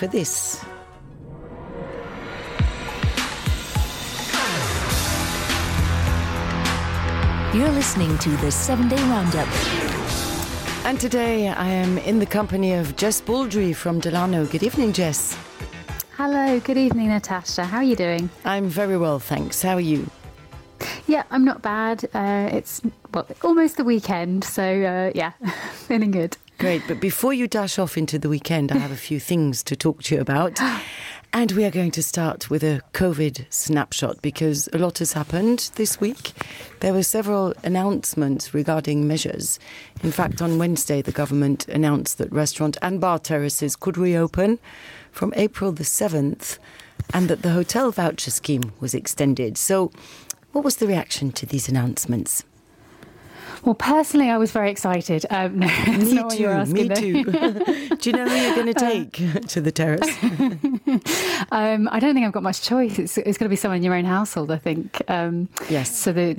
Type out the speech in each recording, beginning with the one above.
for this. You're listening to the 7-Day Roundup. And today I am in the company of Jess Baldry from Delano. Good evening, Jess. Hello, good evening, Natasha. How are you doing? I'm very well, thanks. How are you? Yeah, I'm not bad. It's almost the weekend, so feeling good. Great, but before you dash off into the weekend, I have a few things to talk to you about. And we are going to start with a COVID snapshot because a lot has happened this week. There were several announcements regarding measures. In fact, on Wednesday, the government announced that restaurant and bar terraces could reopen from April the 7th and that the hotel voucher scheme was extended. So what was the reaction to these announcements? Well, personally, I was very excited. No, that's not what you're asking, me too. Do you know who you're going to take to the terrace? I don't think I've got much choice. It's going to be someone in your own household, I think. Yes. So they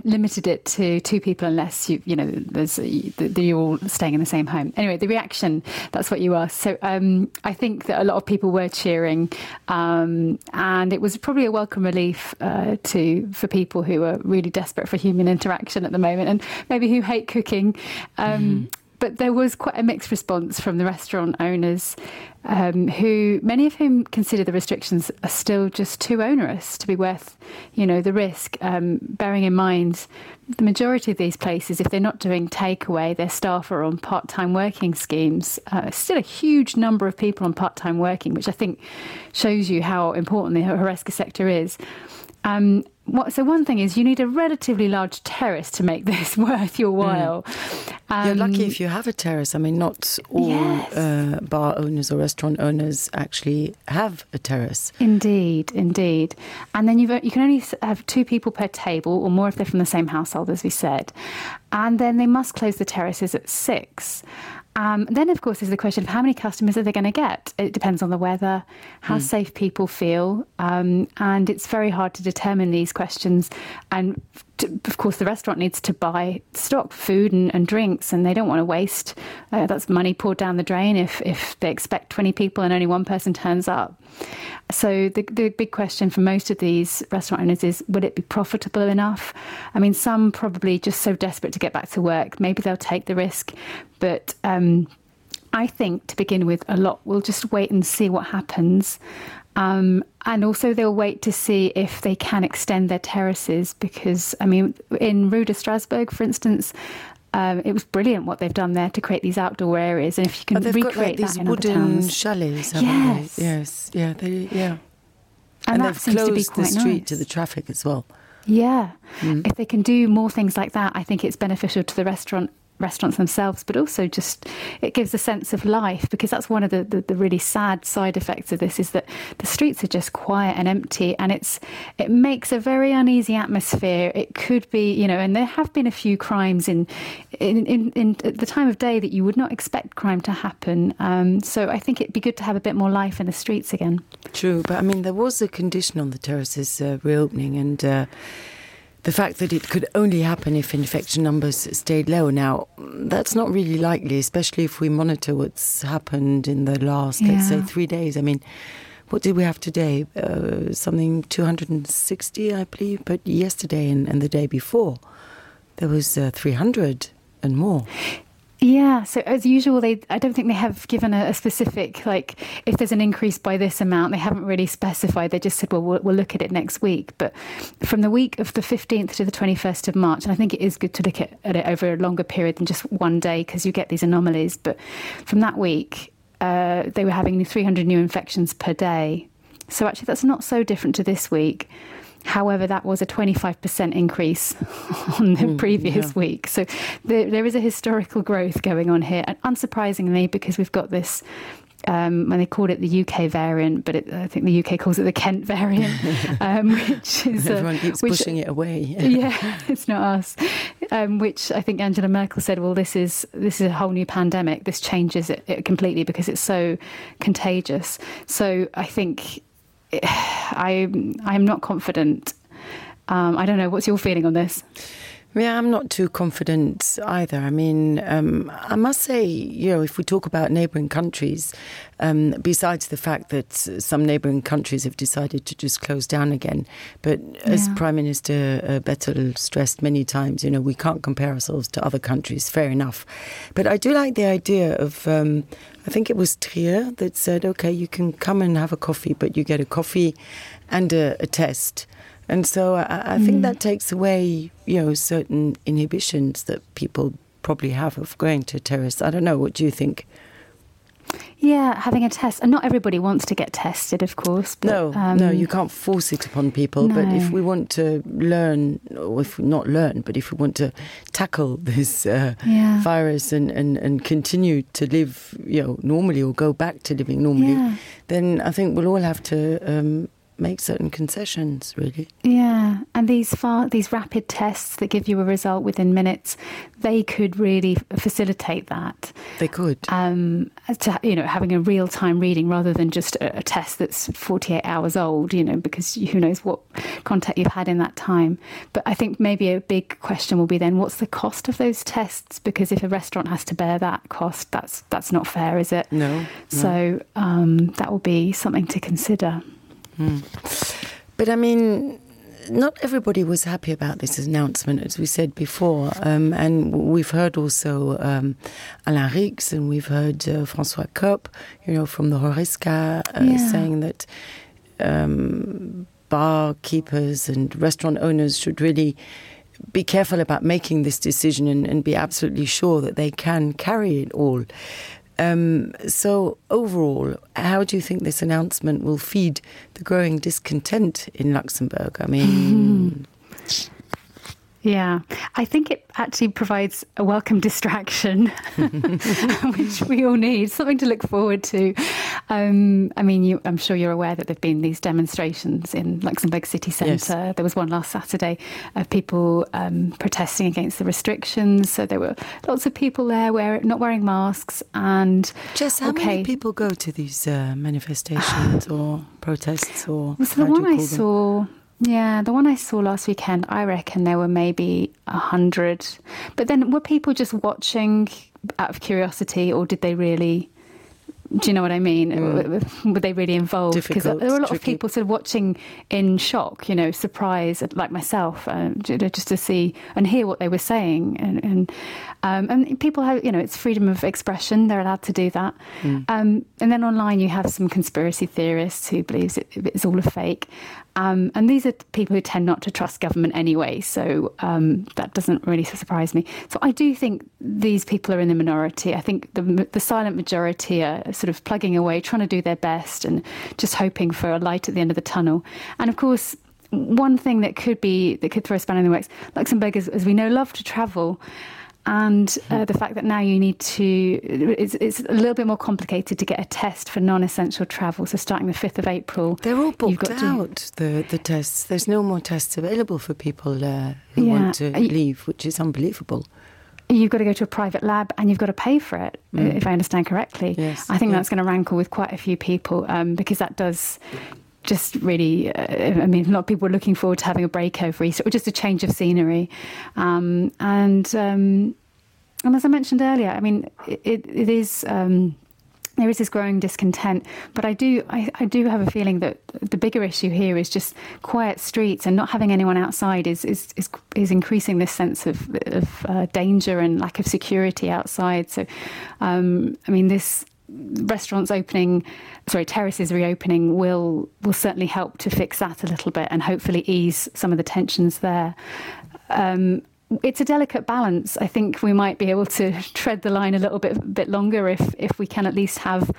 limited it to 2 people unless you're all staying in the same home. Anyway, the reaction, that's what you asked. So I think that a lot of people were cheering, and it was probably a welcome relief for people who are really desperate for human interaction at the moment, and maybe who hate cooking. But there was quite a mixed response from the restaurant owners, many of whom consider the restrictions are still just too onerous to be worth, the risk. Bearing in mind, the majority of these places, if they're not doing takeaway, their staff are on part-time working schemes. Still a huge number of people on part-time working, which I think shows you how important the HoReCa sector is. So one thing is you need a relatively large terrace to make this worth your while. You're lucky if you have a terrace. I mean, not all bar owners or restaurant owners actually have a terrace. Indeed. And then you can only have 2 people per table, or more if they're from the same household, as we said. And then they must close the terraces at 6. Then, of course, there's the question of how many customers are they going to get? It depends on the weather, how safe people feel, and it's very hard to determine these questions. And, of course, the restaurant needs to buy stock, food and drinks, and they don't want to waste. That's money poured down the drain if they expect 20 people and only one person turns up. So the big question for most of these restaurant owners is, will it be profitable enough? I mean, some probably just so desperate to get back to work, maybe they'll take the risk. But I think, to begin with, a lot will just wait and see what happens. And also they'll wait to see if they can extend their terraces because, I mean, in Rue de Strasbourg, for instance, it was brilliant what they've done there to create these outdoor areas. And if you can recreate that in other towns. They've got these wooden chalets, haven't they? Yes. Yeah. And that they've seems to be closed quite the street nice to the traffic as well. Yeah. If they can do more things like that, I think it's beneficial to the restaurants themselves, but also just it gives a sense of life, because that's one of the really sad side effects of this, is that the streets are just quiet and empty, and it makes a very uneasy atmosphere. It could be, and there have been a few crimes in at the time of day that you would not expect crime to happen. So I think it'd be good to have a bit more life in the streets again. True, but I mean, there was a condition on the terraces reopening, and the fact that it could only happen if infection numbers stayed low. Now, that's not really likely, especially if we monitor what's happened in the last, let's say, 3 days. I mean, what did we have today? Something 260, I believe. But yesterday and the day before, there was 300 and more. Yeah, so as usual, I don't think they have given a specific, if there's an increase by this amount, they haven't really specified. They just said, well, we'll look at it next week. But from the week of the 15th to the 21st of March, and I think it is good to look at it over a longer period than just one day, because you get these anomalies. But from that week, they were having 300 new infections per day. So actually, that's not so different to this week. However, that was a 25% increase on the previous week. So there is a historical growth going on here. And unsurprisingly, because we've got this, and they called it the UK variant, but I think the UK calls it the Kent variant, which is... Everyone keeps pushing it away. Yeah, it's not us. Which I think Angela Merkel said, well, this is a whole new pandemic. This changes it completely because it's so contagious. So I think... I'm not confident. I don't know. What's your feeling on this? Yeah, I'm not too confident either. I mean, I must say, if we talk about neighbouring countries, besides the fact that some neighbouring countries have decided to just close down again, but as Prime Minister Bettel stressed many times, we can't compare ourselves to other countries, fair enough. But I do like the idea of, I think it was Trier that said, OK, you can come and have a coffee, but you get a coffee and a test. And so I think that takes away, certain inhibitions that people probably have of going to a terrace. I don't know. What do you think? Yeah, having a test. And not everybody wants to get tested, of course. But, no, you can't force it upon people. No. But if we want to learn, or if not learn, but if we want to tackle this virus and continue to live, normally, or go back to living normally, then I think we'll all have to make certain concessions, really. Yeah, and these rapid tests that give you a result within minutes, they could really facilitate that. They could. Having a real-time reading rather than just a test that's 48 hours old, because who knows what contact you've had in that time. But I think maybe a big question will be then, what's the cost of those tests? Because if a restaurant has to bear that cost, that's not fair, is it? No. So that will be something to consider. But I mean, not everybody was happy about this announcement, as we said before. And we've heard also Alain Rix, and we've heard François Kopp, from the Horeca, saying that bar keepers and restaurant owners should really be careful about making this decision and be absolutely sure that they can carry it all. So overall, how do you think this announcement will feed the growing discontent in Luxembourg? I mean... Yeah, I think it actually provides a welcome distraction, which we all need, something to look forward to. I'm sure you're aware that there have been these demonstrations in Luxembourg city centre. Yes. There was one last Saturday of people protesting against the restrictions. So there were lots of people there not wearing masks. And Jess, how many people go to these manifestations or protests? Or so the one I saw... Yeah, the one I saw last weekend, I reckon there were maybe 100. But then were people just watching out of curiosity, or did they really... Do you know what I mean? Were they really involved? Because there were a lot of people sort of watching in shock, surprise, like myself, just to see and hear what they were saying. And people have, it's freedom of expression. They're allowed to do that. And then online you have some conspiracy theorists who believes it's all a fake. And these are people who tend not to trust government anyway, so that doesn't really surprise me. So I do think these people are in the minority. I think the silent majority are sort of plugging away, trying to do their best and just hoping for a light at the end of the tunnel. And of course, one thing that could throw a spanner in the works, Luxembourg, as we know, love to travel. And the fact that now you need to... It's a little bit more complicated to get a test for non-essential travel. So starting the 5th of April... They're all booked out, the tests. There's no more tests available for people who want to leave, which is unbelievable. You've got to go to a private lab and you've got to pay for it, if I understand correctly. Yes. I think that's going to rankle with quite a few people because that does... Just really, a lot of people are looking forward to having a break over Easter, or just a change of scenery. And as I mentioned earlier, it is there is this growing discontent. But I do have a feeling that the bigger issue here is just quiet streets, and not having anyone outside is increasing this sense of danger and lack of security outside. So, this. Terraces reopening will certainly help to fix that a little bit and hopefully ease some of the tensions there. It's a delicate balance. I think we might be able to tread the line a little bit longer if we can at least have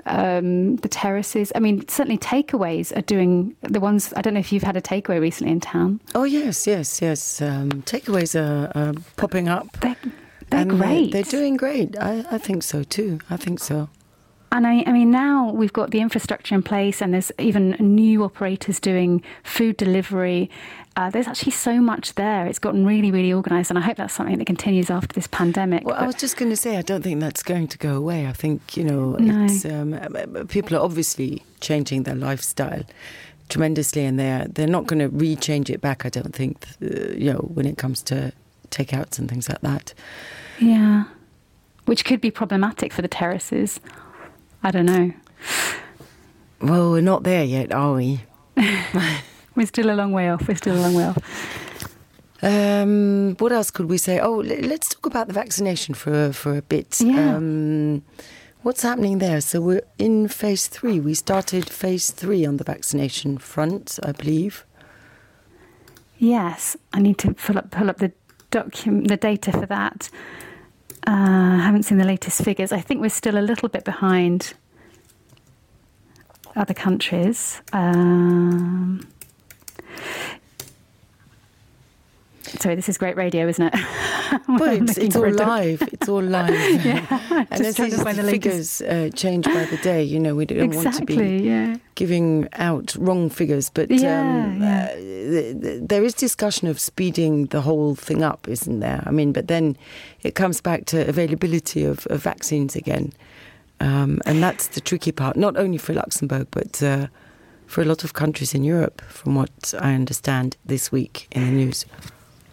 the terraces. Certainly takeaways are doing the ones. I don't know if you've had a takeaway recently in town. Oh yes. Takeaways are popping up. They're great. They're doing great. I think so too. And now we've got the infrastructure in place, and there's even new operators doing food delivery. There's actually so much there. It's gotten really, really organised, and I hope that's something that continues after this pandemic. Well, I was just going to say, I don't think that's going to go away. I think, it's, people are obviously changing their lifestyle tremendously, and they're not going to re-change it back, I don't think, when it comes to takeouts and things like that. Yeah. Which could be problematic for the terraces. I don't know. Well, we're not there yet, are we? We're still a long way off. What else could we say? Oh, let's talk about the vaccination for a bit. Yeah. What's happening there? So we're in phase 3. We started phase 3 on the vaccination front, I believe. Yes, I need to pull up the data for that. I haven't seen the latest figures. I think we're still a little bit behind other countries. Sorry, this is great radio, isn't it? Well, it's all live. It's all live. Yeah, and as these figures change by the day, you know, we don't want to be giving out wrong figures. But there is discussion of speeding the whole thing up, isn't there? I mean, but then it comes back to availability of vaccines again. And that's the tricky part, not only for Luxembourg, but for a lot of countries in Europe, from what I understand this week in the news.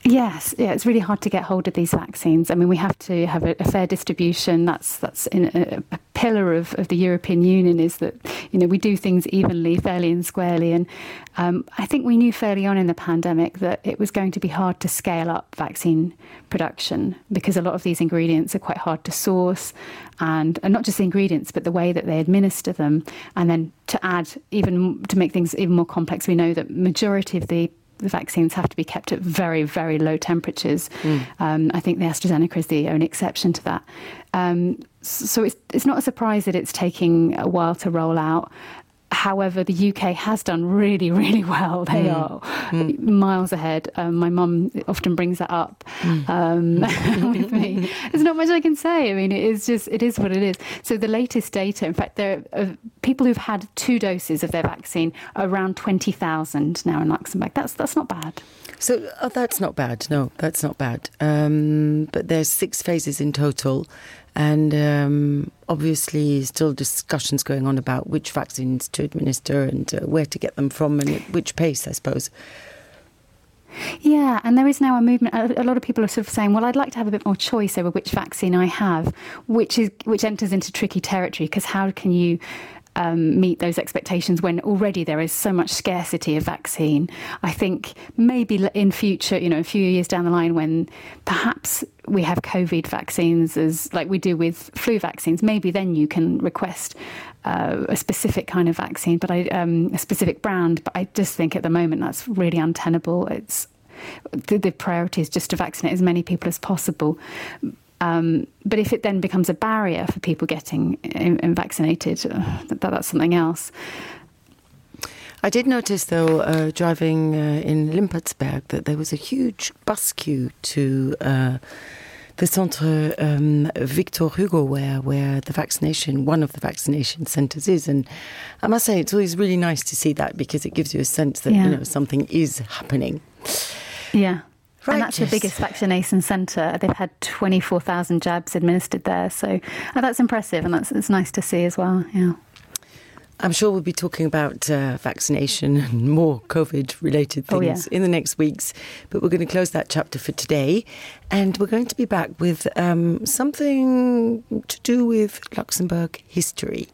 Yes, it's really hard to get hold of these vaccines. I mean, we have to have a fair distribution. That's in a pillar of the European Union, is that, you know, we do things evenly, fairly and squarely. And I think we knew fairly on in the pandemic that it was going to be hard to scale up vaccine production, because a lot of these ingredients are quite hard to source, and not just the ingredients, but the way that they administer them. And then to make things even more complex, we know that majority of the vaccines have to be kept at very, very low temperatures. I think the AstraZeneca is the only exception to that. So it's not a surprise that it's taking a while to roll out. However, the UK has done really, really well. They are miles ahead. My mum often brings that up with me. There's not much I can say. I mean, it is what it is. So the latest data, in fact, there are people who've had 2 doses of their vaccine, around 20,000 now in Luxembourg. That's not bad. So that's not bad. No, that's not bad. But there's 6 phases in total. And obviously still discussions going on about which vaccines to administer and where to get them from and at which pace, I suppose. Yeah, and there is now a movement. A lot of people are sort of saying, well, I'd like to have a bit more choice over which vaccine I have, which enters into tricky territory, because how can you meet those expectations when already there is so much scarcity of vaccine? I think maybe in future, you know, a few years down the line, when perhaps we have COVID vaccines as like we do with flu vaccines, maybe then you can request a specific kind of vaccine, but a specific brand. But I just think at the moment that's really untenable. It's the priority is just to vaccinate as many people as possible. But if it then becomes a barrier for people getting vaccinated, that's something else. I did notice, though, driving in Limpertsberg, that there was a huge bus queue to the Centre Victor Hugo, where one of the vaccination centres is. And I must say, it's always really nice to see that, because it gives you a sense that you know, something is happening. Yeah. Right, and that's the biggest vaccination centre. They've had 24,000 jabs administered there. So that's impressive, and it's nice to see as well. Yeah. I'm sure we'll be talking about vaccination and more COVID-related things in the next weeks. But we're going to close that chapter for today. And we're going to be back with something to do with Luxembourg history.